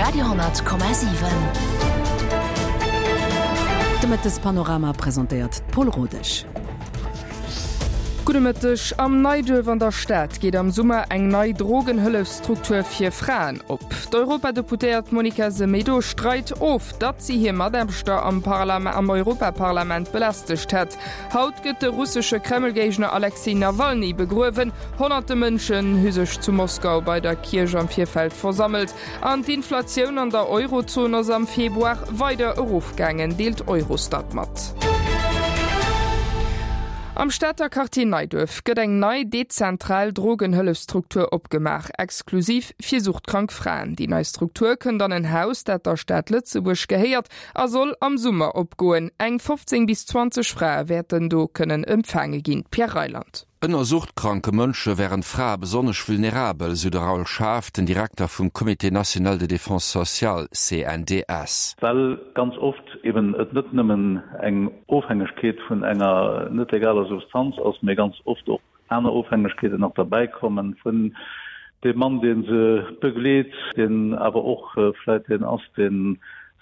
Radio 10,7. De Mëttespanorama presentéiert d'Paul Rodesch. Gudde Mëtteg. Am Neiduerf an der Stad geet am Summer eng nei Drogenhëllefsstruktur fir Fraen op. D'Europadeputéiert Monica Semedo streit of, datt si hir Mataarbechter am am Europaparlament belästegt hätt. Haut gëtt de russesche Kremlgéigner Alexej Nawalny begruewen. Honnerte Mënschen hu sech zu Moskau bei der Kierch am Virfeld versammelt. An d'Inflatioun an der Eurozon ass am Februar weider erofgaangen, deelt Eurostat mat. Am Stater Quartier Neiduerf gëtt eng nei dezentral Drogenhëllefsstruktur opgemaach, exklusiv fir suchtkrank Fraen. Déi nei Struktur kënnt an en Haus, dat der Stad Lëtzebuerg gehéiert a soll am Summer opgoen. Eng 15 bis 20 Frae wäerten do kënnen empfaange ginn. Pierre Reyland. Ënner suchtkranke Mënsche wären d'Frae besonnesch vulnerabel, sou de Raoul Schaaf, den Direkter vum Comité national de défense sociale, CNDS. Well ganz oft eben et net nëmmen eng Ofhängegkeet vun enger net legaler Substanz ass, mee ganz oft och aner Ofhängegkeeten nach derbäi kommen, vun deem Mann, dee se begleet, deen awer och vläit deen ass, dee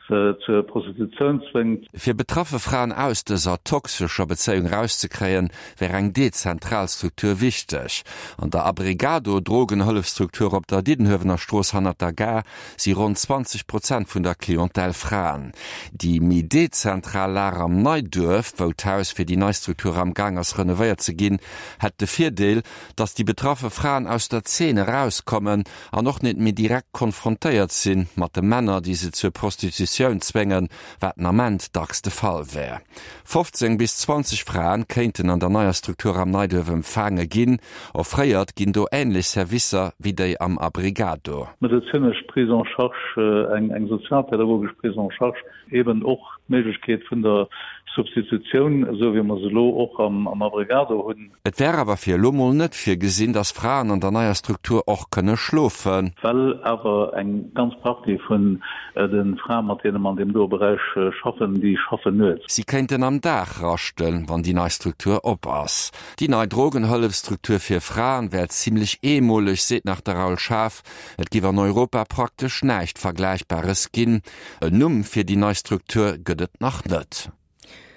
se zur Prostitutioun zwéngt. Fir betraffe Fraen aus dëser toxescher Bezéiung erauszekréien, wär eng dezentral Struktur wichteg. An der Abrigado Drogenhëllefstruktur op der Diddenhuewener Strooss hannert der Gare si ronn 20 Prozent vun der Clientèle Fraen. Déi méi dezentral Lag am Neiduerf, wou d'Haus fir déi nei Struktur am Gaang ass renovéiert ze ginn, hätt de Virdeel, datt déi betraffe Fraen aus der Zeen erauskommen an och net méi direkt konfrontéiert si mat de Männer, déi se zur Prostitutioun zwéngen, wat den Ament dacks de Fall wär. 15 bis 20 Fraen kéinten an der neier Struktur am Neiduerf empfaange ginn. Offréiert ginn do änlech Servicer wéi déi am Abrigado. Medezinesch Prise en charge, eng sozialpädagogesch Prise en charge, Eben och d'Méiglechkeet vun der Substitutioun, esou wéi mer se elo och am Abrigado hunn. Et wär awer fir elo mol net virgesinn, datt Fraen an der neier Struktur och kënne schlofen. Well awer eng ganz Partie vun de Frae mat deene mer an deem doe Beräich schaffen, déi schaffen nuets. Si kéinten am Dag raschten, wann déi nei Struktur op ass. Déi nei Drogenhëllefstruktur fir Fraen wär zimlech eemoleg, seet nach de Raoul Schaaf. Et giff an Europa praktesch näischt Vergläichbares ginn. En Numm fir déi nei Struktur gëtt et nach net.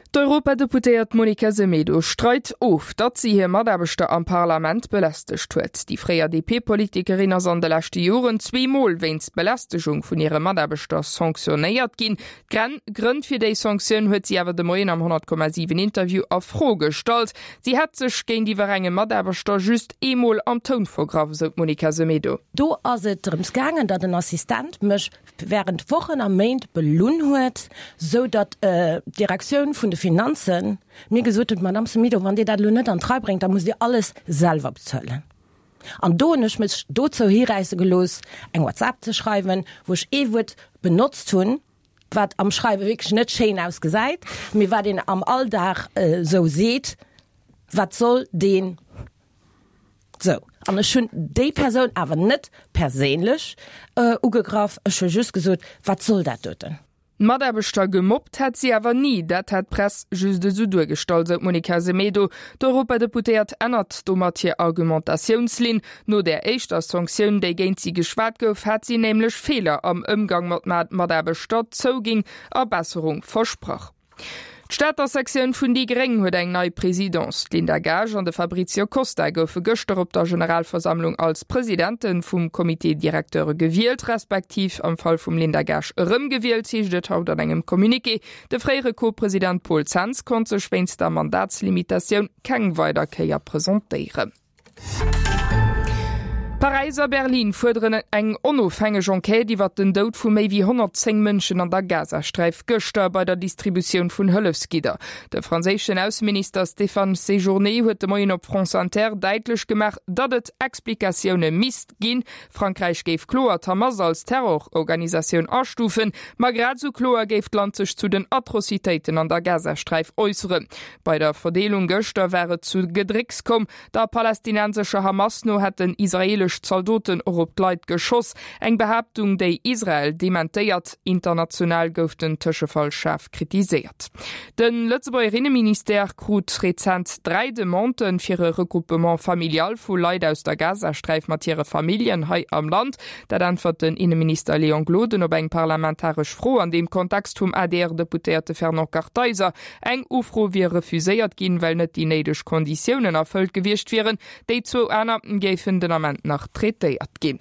D'Europadeputéiert Monica Semedo streit of, datt si hir Mataarbechter am Parlament belästegt huet. Déi fréier DP-Politikerin ass an de leschte Joren zweemol wéinst Belästegung vun hire Mataarbechter sanctionéiert ginn. D'Grënn fir déi Sanktioun huet si awer de Moien am 100,7 Interview a Fro gestallt. Si hätt sech géintiwwer engem Mataarbechter just eemol am Toun vergraff, esou d'Monica Semedo. Do ass et drëms gaangen, datt en Assistent mech während Wochen a Méint belunn huet, sou datt d'Direktioun vun de Finanzen mir gesot huet, Madame Semedo, wann Dir dat elo net an d'Rei bréngt, da musst Dir alles selwer bezuelen. An do hunn ech mech dozou hiräisse gelooss, eng WhatsApp ze schreiwen, wou ech ee Wuert benotzt hunn, wat am Schreiwe wierklech net schéin ausgesäit, mee wat een am Alldag esou seet, Wat soll deen? Sou, an ech hunn déi Persoun awer net perséinlech ugegraff, ech hu just gesot, Wat soll dat doten? D'Mataarbechter gemobbt hätt si awer ni, dat hätt d'Press just esou duergestallt, sou d'Monica Semedo. D'Europadeputéiert ännert domat hir Argumentatiounslinn. No där éischter Sanktioun, déi géint si geschwat gouf, hat si nämlech Feeler am Ëmgang mat Mataarbechter zouginn a Besserung versprach. D'Stater Sektioun vun déi gréng huet eng nei Presidence. D'Linda Gaasch an de Fabrizio Costa goufe gëschter op der Generalversammlung als Presidente vum Comité directeur gewielt, respektiv am Fall vum Linda Gaasch erëmgewielt, heescht et haut an engem Communiqué. De fréiere Co-President Paul Zens konnt sech wéinst der Mandatslimitatioun keng weider Kéier presentéieren. Paräis a Berlin fuerderen eng onofhängeg Enquête iwwert den Doud vu méi wéi 110 Mënschen an der Gazasträif gëschter bei der Distributioun vun Hëllefsgidder. De franséischen Ausseminister Stéphane Séjourné huet de Moien op France Inter däitlech gemaach, datt et Explikatioune misst ginn. Frankräich géif kloer d'Hamas als Terrororganisatioun astufen, ma grad esou kloer géif d'Land sech zu den Atrocitéiten an der Gazasträif äusseren. Bei der Verdeelung gëschter war et zu Gedrécks komm. Der palästinensescher Hamas no hätten israeelesch. israeelesch Zaldoten och op d'Leit geschoss. Eng Behaaptung, déi Israel dementéiert. International gouf den Tëschefall schaarf kritiséiert. De Lëtzebuerger Inneministère krut rezent 3 Demandë fir e Regroupement familial vu Leit aus der Gazasträif mat hire Familljen hei am Land. Dat äntwert den Inneminister Léon Gloden op eng parlamentaresch Fro an deem Kontext vum ADR-Deputéierte Fernand Kartheiser. Eng Ufro wier refuséiert ginn, well net déi néideg Konditiounen erfëllt gewiescht wieren. Déi zwou aner géifen den Ament nach traitéiert ginn.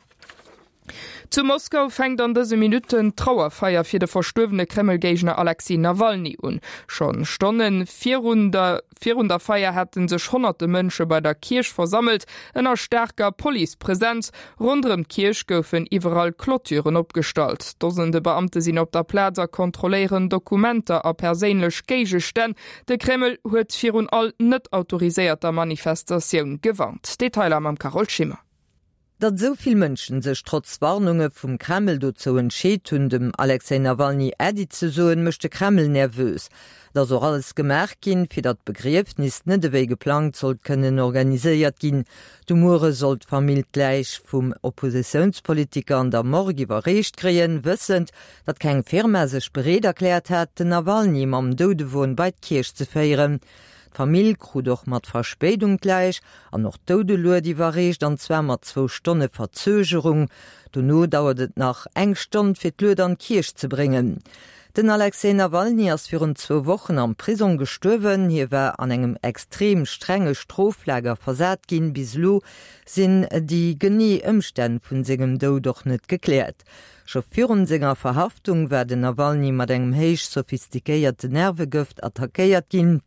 Zu Moskau fänkt an dëse Minutten d'Trauerfeier fir de verstuerwene Kreml-Géigner Alexej Nawalny un. Schonn Stonne virun der virun der Feier hätte sech honnerte Mënsche bei der Kierch versammelt, ënner staarker Policepresenz. Ronderëm d'Kierch goufen iwwerall Clôturen opgestallt. Dosende Beamte sinn op der Plaz a kontrolléieren Dokumenter a perséinlech Géigestänn. De Kreml huet virun all net autoriséierter Manifestatioun gewarnt. Detailer mam Carole Schimmer. Datt esou vill Mënschen sech trotz Warnunge vum Kreml dozou entscheet hunn, dem Alexej Nawalny Äddi ze soen, mécht de Kreml nervös. Et ass och alles gemaach ginn, fir datt d'Begriefnis net ewéi geplangt sollt kënnen organiséiert ginn. De Muere soll d'Famill d'Läich vum Oppositiounspolitiker an der Morgue iwwerreecht kréien, wëssend, datt keng Firma sech bereet erkläert hat, den Nawalny mam Doudewon bei d'Kierch ze féieren. D'Famill krut och mat Verspéidung d'Läich an och d'Doudelued iwwerreecht, an zwar mat zwou Stonne Verzögerung. Dono dauert et nach eng Stonn, fir d'Lued an d'Kierch ze bréngen. Den Alexej Nawalny ass virun zwou Wochen am Prisong gestuerwen. Hie war an engem extrem strenge Stroflager versat ginn. Bis elo sinn déi genee Ëmstänn vun sengem Doud och net gekläert. Scho virun senger Verhaftung war den Nawalny mat engem héich sophistiquéierte Nervegëft attackéiert ginn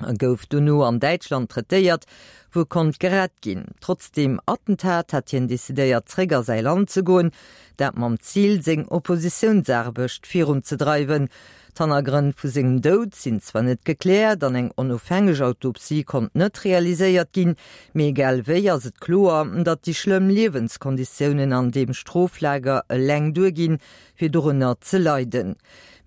a gouf dono an Däitschland traitéiert, wou e konnt gerett ginn. Trotz deem Attentat hat hien decidéiert zréck a säi Land ze goen, dat mam Zil seng Oppositiounsaarbecht virunzedreiwen. D'Hannergrënn vu sengem Doud sinn zwar net gekläert an eng onofhängeg Autopsie konnt net realiséiert ginn, mee egal wéi ass et kloer, datt déi schlëmm Liewenskonditiounen an deem Stroflager eleng duerginn, fir dorënner ze leiden.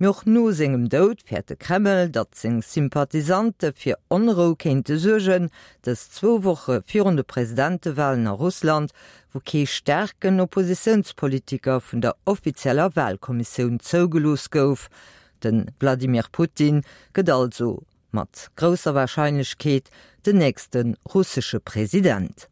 Mee och no sengem Doud fäert de Kreml, datt seng Sympathisante fir Onrou kéinte suergen, dës zwou Woche virun de Presidentewalen a Russland, wou kee staarken Oppositiounspolitiker vun der offizieller Walkommissioun zougelooss gouf. De Wladimir Putin gëtt also mat grousser Warscheinlechkeet den nächste russesche President.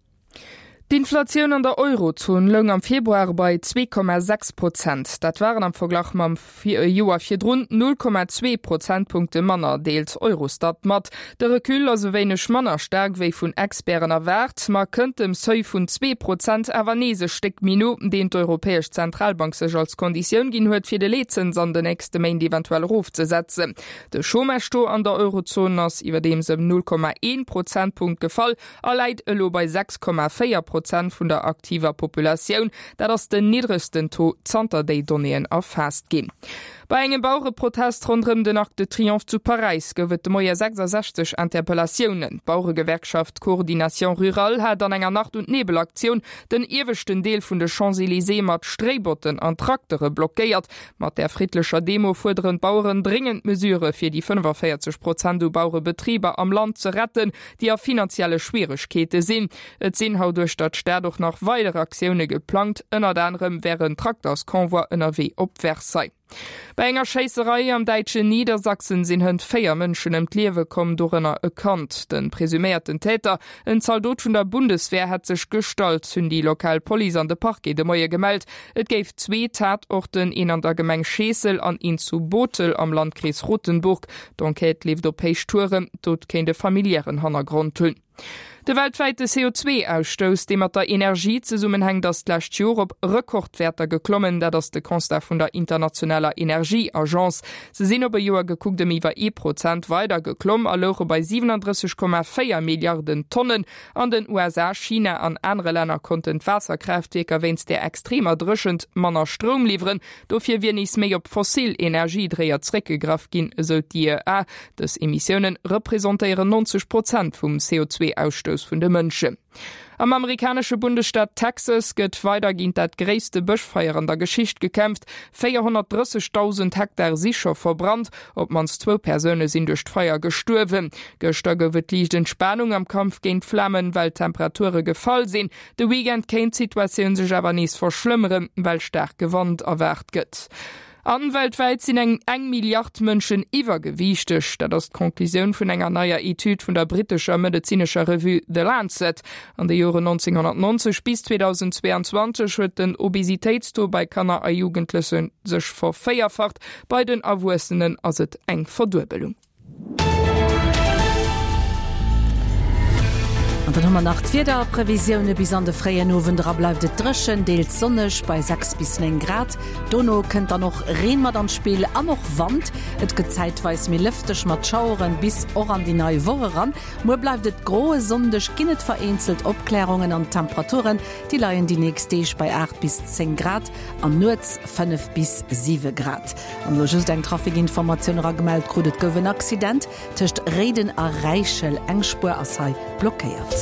D'Inflatioun an der Eurozon loung am Februar bei 2,6 Prozent. Dat waren am Verglach mam Joer virdrun 0,2 Prozentpunkte manner, deelt Eurostat mat. De Recul ass e wéineg manner staark wéi vun Experten erwaart, ma kënnt dem Seuil vun 2 Prozent awer nees e Stéck méi no, deen d'Europäesch Zentralbank sech als Konditioun ginn huet, fir de Leetzëns an de nächste Méint eventuell erofzesetzen. De Chômage-Taux an der Eurozon ass iwwerdeems ëm 0,1 Prozentpunkt gefall a läit elo bei 6,4 Prozent vun der aktiver Populatioun. Dat ass den niddregsten Taux zanter déi Donnéeën erfaasst ginn. Bei engem Bauereprotest ronderëm den Arc de Triomphe zu Paräis gouf et de Moie 66 Interpellatiounen. D'Baueregewerkschaft Coordination Rurale hat an enger Nacht und Nebel-Aktioun den ieweschten Deel vun de Champs-Elysées mat Stréibotten an Traktere blockéiert. Mat där friddlecher Demo fuerderen d'Baueren dréngend Mesure fir déi 45 Prozent u Bauerebetriber am Land ze retten, déi a finanzielle Schwieregkeete sinn. Et sinn haut uechter d'Stad och nach weider Aktioune geplangt, ënnert anerem wär en Traktersconvoi ënnerwee op Versailles. Bei enger Schéisserei am däitschen Niedersachsen sinn hënt 4 Mënschen ëm d'Liewe komm, dorënner e Kand. De presuméierten Täter, en Zaldot vun der Bundeswehr, hätt sech gestallt, hunn déi lokal Police an de Parquet de Moie gemellt. Et géif zwee Tatorten, een an der Gemeng Scheessel an een zu Bothel am Landkrees Rotenburg. D'Enquête leeft op Héichtouren, d'Dot kéint e familiären Hannergrond hunn. De weltwäite CO2-Ausstouss, dee mat der Energie zesummenhänkt, ass d'lescht Joer op Rekordwäerter geklommen. Dat ass de Constat vun der internationaler Energieagence. Se sinn op e Joer gekuckt ëm iwwer ee Prozent weider geklomm a louche bei 37,4 Milliarden Tonnen. An den USA, China an anere Länner konnten d'Waasserkraaftwierker wéinst der extremer Dréchent manner Stroum liwweren. Dofir wier nees méi op fossil Energiedréier zeréckgegraff ginn, esou d'IEA. Dës Emissioune representéieren 90 Prozent vum CO2-Ausstouss. Ausstouss vun de Mënschen. Am amerikanesche Bundesstaat Texas gëtt weider géint dat gréisste Bëschfeier an der Geschicht gekämpft. 430.000 Hektar si scho verbrannt. Op d'mannst zwou Persoune sinn duerch d'Feier gestuerwen. Gëschter gouf et liicht Entspanung am Kampf géint d'Flamen, well d'Temperature gefall sinn. De Weekend kéint d'Situatioun sech awer nees verschlëmmeren, well staarke Wand erwaart gëtt. An weltwäit sinn eng eng Milliard Mënschen iwwergewiichteg. Dat ass d'Conclusioun vun enger neier Etüd vun der brittescher medezinescher Revue The Lancet. An de Joren 1990 bis 2022 huet den Obesitéitstaux bei Kanner a Jugendleche sech vervéierfacht, bei den Erwuessenen ass et eng Verduebelung. An dann hu mer nach d'Wiederprevisioune, Bis an de fréien Owend era bleift et dréchen, deels sonneg bei 6 bis 9 Grad. Dono kënnt dann och Reen mat an d'Spill an och Wand. Et gëtt zäitweis méi lëfteg mat Schaueren bis och an déi nei Woch eran. Muer bleift et gro, e Sonndeg ginn et vereenzelt Opklärungen an d'Temperaturen déi leien déi nächst Deeg bei 8 bis 10 Grad an nuets 5 bis 7 Grad. An elo just eng Trafikinformatioun eragemellt krut, Et gouf en Accident tëscht Réiden a Räichel. Eng Spuer ass hei blockéiert.